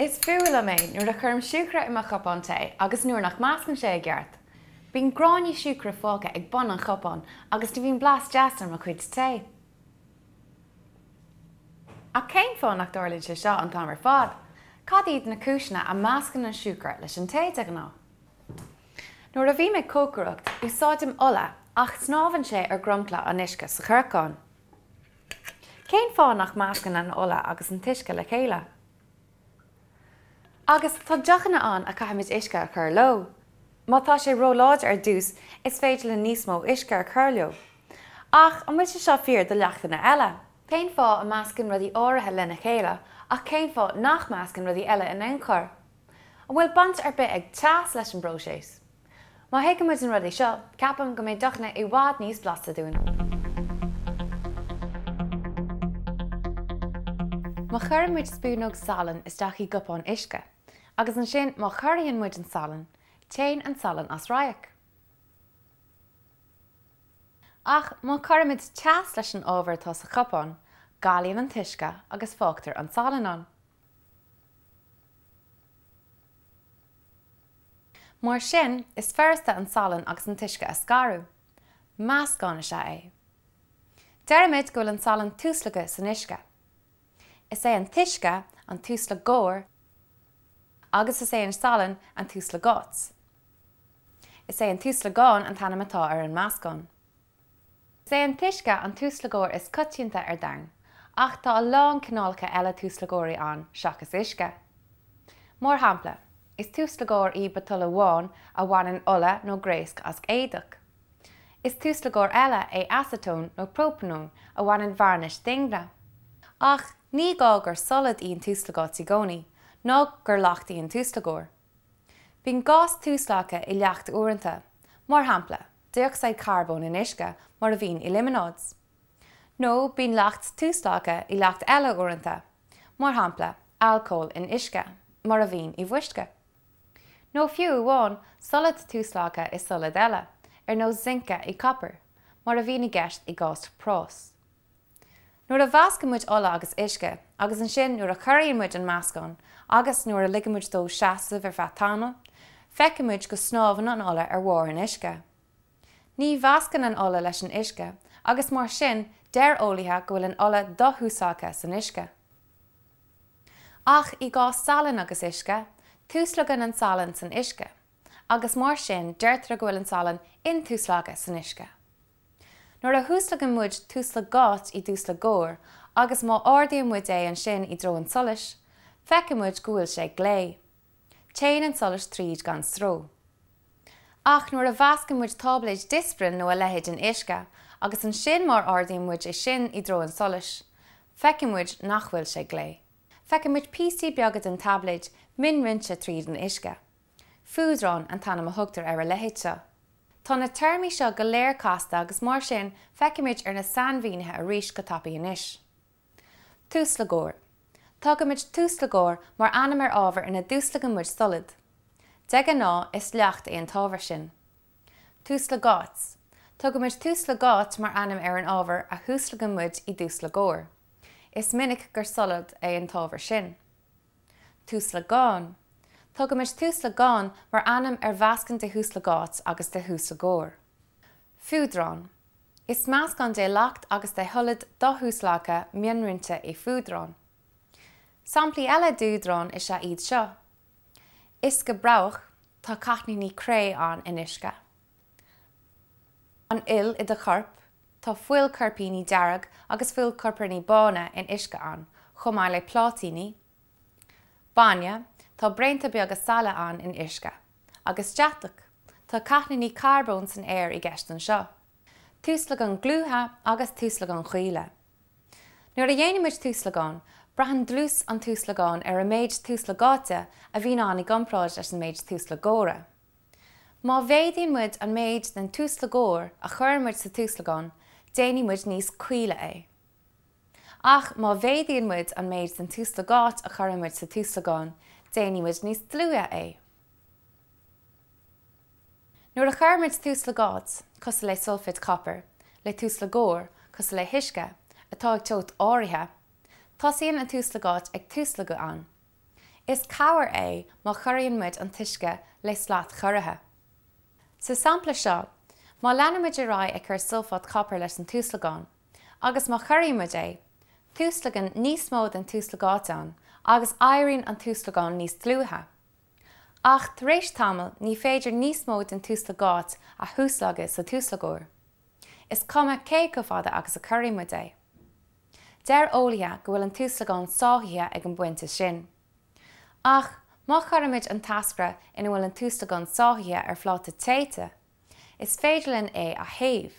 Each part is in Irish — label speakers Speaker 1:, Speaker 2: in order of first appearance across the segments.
Speaker 1: Is fuath liom é nuair a chuirim siúcra i mo chupán tae agus nuair nach meascann sé i gceart. Bíonn gráinní siúcra fágtha ag bun an chupáin agus ní bhíonn blas deas ar mo chuid tae. Ach cén fáth nach dtarlaíonn sé seo an t-am ar fad? Cad iad na cúiseanna a meascann an siúcra leis an tae de ghnáth? Nuair a bhím ag cócaireacht, úsáidim ola ach snámhann sé ar dhromchla an uisce sa chorcán. Cén fáth nach meascann an ola agus an t-uisce le chéile? Agus tá deochanna ann a caithfimid uisce a chur leo. Má tá sé róláidir ar dtús, is féidir linn níos mó uisce a chur leo. Ach an bhfuil sé seo fíor do leachtanna eile? Cén fáth a meascann rudaí áirithe lena chéile ach cén fáth nach meascann rudaí eile in aon chor? An bhfuil baint ar bith ag teas leis an bpróiseas? Má thuigeann muid na rudaí seo, ceapaim go mbeidh deochanna i bhfad níos blasta dúinn. Má chuireann muid spúnóg salainn isteach i gcupán uisce, agus ansin má chorraíonn muid an salann, téann an salann as radharc. Ach má chuirimid teas leis an ábhar atá sa chupán, galaíonn an t-uisce agus fágtar an salann ann. Mar sin, is furasta an salann agus an t-uisce a scaradh. Meascán is ea é. Deirimid go bhfuil an salann tuaslagtha san uisce. Is é an t-uisce an tuaslagóir agus is é an salann an tuaslagáit. Is é an tuaslagán an t-ainm atá ar an meascán. Is é an t-uisce an tuaslagóir is coitianta ar domhan, ach tá a lán cineálacha eile tuaslagóirí ann seachas uisce. Mar shampla, is tuaslagóir í biotáille bhán a bhaineann ola nó gréasc as éadach. Is tuaslagóir eile é aseatón nó própanón a bhaineann vearnais d'ingne. Ach ní gá gur solad í an tuaslagáit i gcónaí, ná gur leacht í an tuaslagóir. Bíonn gás tuaslagtha i leacht uaireanta, mar shampla, dé-ocsaíd charbóin in uisce mar a bhíonn i líomanáid. Nó bíonn leacht tuaslagtha i leacht eile uaireanta, mar shampla, alcól in uisce, mar a bhíonn i bhfuisce. Nó fiú amháin, solad tuaslagtha i solad eile, ar nós zince i gcopar, mar a bhíonn i gceist i gcás práis. Nuair a mheascann muid ola agus uisce, agus ansin nuair a chorraíonn muid an meascán agus nuair a ligeann muid dó seasamh ar feadh tamaill, feicfidh muid go snámhann an ola ar bharr an uisce. Ní mheascann an ola leis an uisce agus mar sin deir eolaithe go bhfuil an ola do-thuaslagtha san uisce. Ach i gcás salainn agus uisce, tuaslagann an salann san uisce agus mar sin deirtear go bhfuil an salann intuaslagtha san uisce. Nuair a thuaslagann muid tuaslagáit i dtuaslagóir agus má ardaíonn muid é ansin i dtreo an tsolais, feicfidh muid go bhfuil sé glé. Téann an solas tríd gan stró. Ach nuair a mheascann muid táibléid Disprin nó a leithéid in uisce agus ansin má ardaíonn muid é sin i dtreo an tsolais, feicfidh muid nach bhfuil sé glé. Feicfidh muid píosaí beaga den taibléid mionroinnte tríd an uisce. Fuadrán an t-ainm a thugtar ar a leithéid seo. Tá na téarmaí seo go léir casta agus mar sin feicfimid ar na sainmhínithe arís go tapaidh anois. Tuaslagóir. Tugaimid tuaslagóir mar ainm ar ábhar ina dtuaslagann muid solad. De ghnáth is leacht é an t-ábhar sin. Tuaslagáit. Tugaimid tuaslagáit mar ainm ar an ábhar a thuaslagann muid i dtuaslagóir. Is minic gur solad é an t-ábhar sin. Tuaslagán. Tugaimid tuaslagán mar ainm ar mheascán de thuaslagáit agus de thuaslagóir. Fuadrán. Is meascán de leacht agus de sholad do-thuaslagtha mionroinnte é fuadrán. Samplaí eile d'fhuadráin is ea iad seo. Uisce broghach, tá cáithníní cré ann in uisce. An fhuil i do chorp, tá fuilchoirpíní dearg agus fuilchoirpíní bána in uisce ann, chomh maith le pláitíní. Bainne, tá braonta beaga saille ann in uisce. Agus deatach, tá cáithníní carbóin san aer i gceist anseo. Tuaslagáin dhlútha agus tuaslagáin chaola. Nuair a dhéanann muid tuaslagán, braitheann dlús an tuaslagáin ar an méid tuaslagáite a bhíonn ann i gcomparáid leis an méid tuaslagóra. Má mhéadaíonn muid an méid den tuaslagóir a chuireann muid sa tuaslagán, déanfaidh muid níos caoile é. Ach má mhéadaíonn muid an méid den tuaslagáit a chuireann muid sa tuaslagán, déanfaidh muid níos dlúithe é. Nuair a chuireann muid tuaslagáit, cosúil le sulféid chopair, le tuaslagóir, cosúil le huisce, atá ag teocht áirithe, tosaíonn an tuaslagáit ag tuaslagadh ann. Is cabhair é má chorraíonn muid an t-uisce le slat chorraithe. Sa sampla seo, má leanann muid ar aghaidh ag cur sulfáit chopair leis an tuaslagán, agus má chorraíonn muid é, tuaslagann níos mó den tuaslagáit ann agus éiríonn an tuaslagán níos dlúithe. Ach tar éis tamaill ní féidir níos mó den tuaslagáit a thuaslagadh sa tuaslagóir. Is cuma cé chomh fada agus a chorraíonn muid é. Deir eolaithe go bhfuil an tuaslagán sáithithe ag an bpointe sin. Ach má chuirimid an t-eascra ina bhfuil an tuaslagán sáithithe ar phláta téite, is féidir linn é a théamh,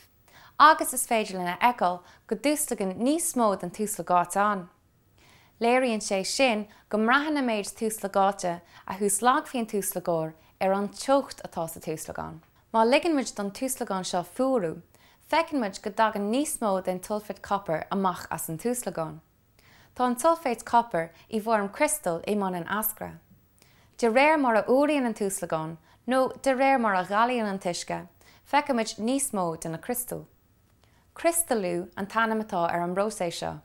Speaker 1: agus is féidir linn a fheiceáil go dtuaslagann níos mó den tuaslagáit ann. Léiríonn sé sin go mbraitheann an méid tuaslagáite a thuaslagfaidh an tuaslagóir ar an teocht atá sa tuaslagán. Má ligeann muid don tuaslagán seo fuarú, feiceann muid go dtagann níos mó den tsulfáit copair amach as an tuaslagán. Tá an tsulfáit copair i bhfoirm criostail i mbun an eascra. De réir mar a fhuaraíonn an tuaslagán, nó de réir mar a ghalaíonn an t-uisce, feicimid níos mó de na criostail. Criostalú an t-ainm atá ar an bpróiseas seo.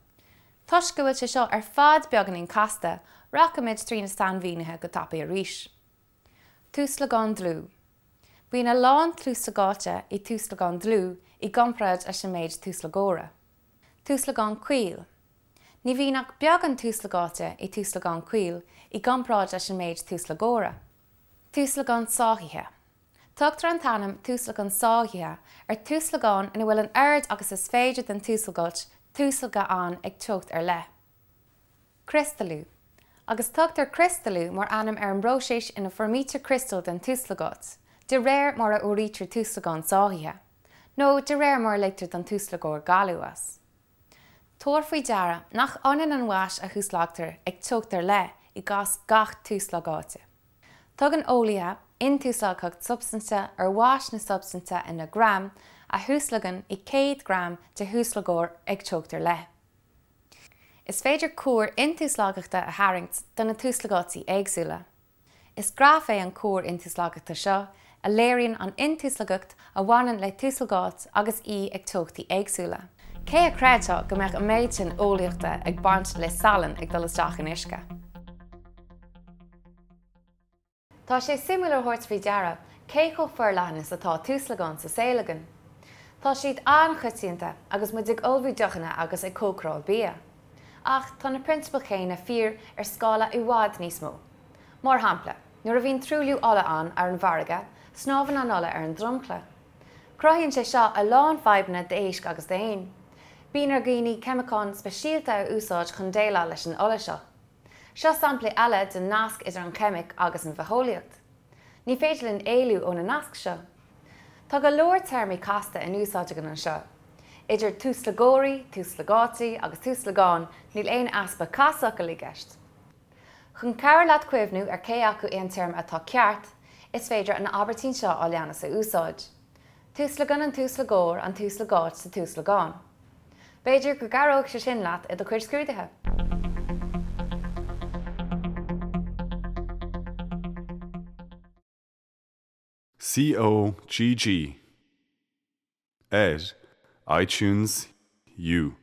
Speaker 1: Toisc go bhfuil sé seo ar fad beagáinín casta, rachaimid trí na sainmhínithe go tapaidh arís. Tuaslagán dlúth. Bíonn a lán tuaslagáite i tuaslagán dlúth i gcomparáid leis an méid tuaslagóra. Tuaslagán caol. Ní bhíonn ach beagán tuaslagáite i tuaslagán caol i gcomparáid leis an méid tuaslagóra. Tuaslagán sáithithe. Tugtar an t-ainm tuaslagán sáithithe ar tuaslagán ina bhfuil an oiread agus is féidir den tuaslagáit tuaslagtha ann ag teocht ar leith. Criostalú. Agus tugtar criostalú mar ainm ar an bpróiseas ina bhfoirmítear criostail den tuaslagáit, de réir mar a fhuaraítear tuaslagán sáithithe, nó de réir mar a ligtear don tuaslagóir galú as. Tabhair faoi deara nach ionann an mhais a thuaslagtar ag teocht ar leith i gcás gach tuaslagáite. Tugann eolaithe intuaslagthacht substainte ar mhais na substainte ina ngraim a thuaslagann i 100 gram de thuaslagóir ag teocht ar leith. Is féidir cuar intuaslagthachta a tharraingt do na tuaslagáití éagsúla. Is graf é an cuar intuaslagthachta seo a léiríonn an intuaslagthacht a bhaineann le tuaslagáit agus í ag teochtaí éagsúla. Cé a chreidfeadh go mbeadh an méid sin eolaíochta ag baint le salann ag dul isteach in uisce? Tá sé suimiúil a thabhairt faoi deara cé chomh forleathan is atá tuaslagáin sa saol againn. Tá siad an-choitianta agus muid ag ullmhú deochanna agus ag cócaráil bia. Ach tá na prionsabail chéanna fíor ar scála i bhfad níos mó. Mar shampla, nuair a bhíonn truailliú ola ann ar an bhfarraige, snámhann an ola ar an dromchla. Cruthaíonn sé seo a lán fadhbanna d'éisc agus d'éin. Bíonn ar dhaoine ceimiceáin speisialta a úsáid chun déileáil leis an ola seo. Seo samplaí eile den nasc idir an cheimic agus an bhitheolaíocht. Ní féidir linn éalú ó na naisc seo. Tá go leor téarmaí casta in úsáid againn anseo. Idir tuaslagóirí, tuaslagáití agus tuaslagáin níl aon easpa casfhocal i gceist. Chun cabhair leat cuimhniú ar cé acu é an téarma atá ceart, is féidir an abairtín seo a leanas a úsáid. Tuaslagann an tuaslagóir an tuaslagáit sa tuaslagán. B'fhéidir go gcabhróidh sé sin leat i do chuid scrúduithe!
Speaker 2: COGG ar iTunes U.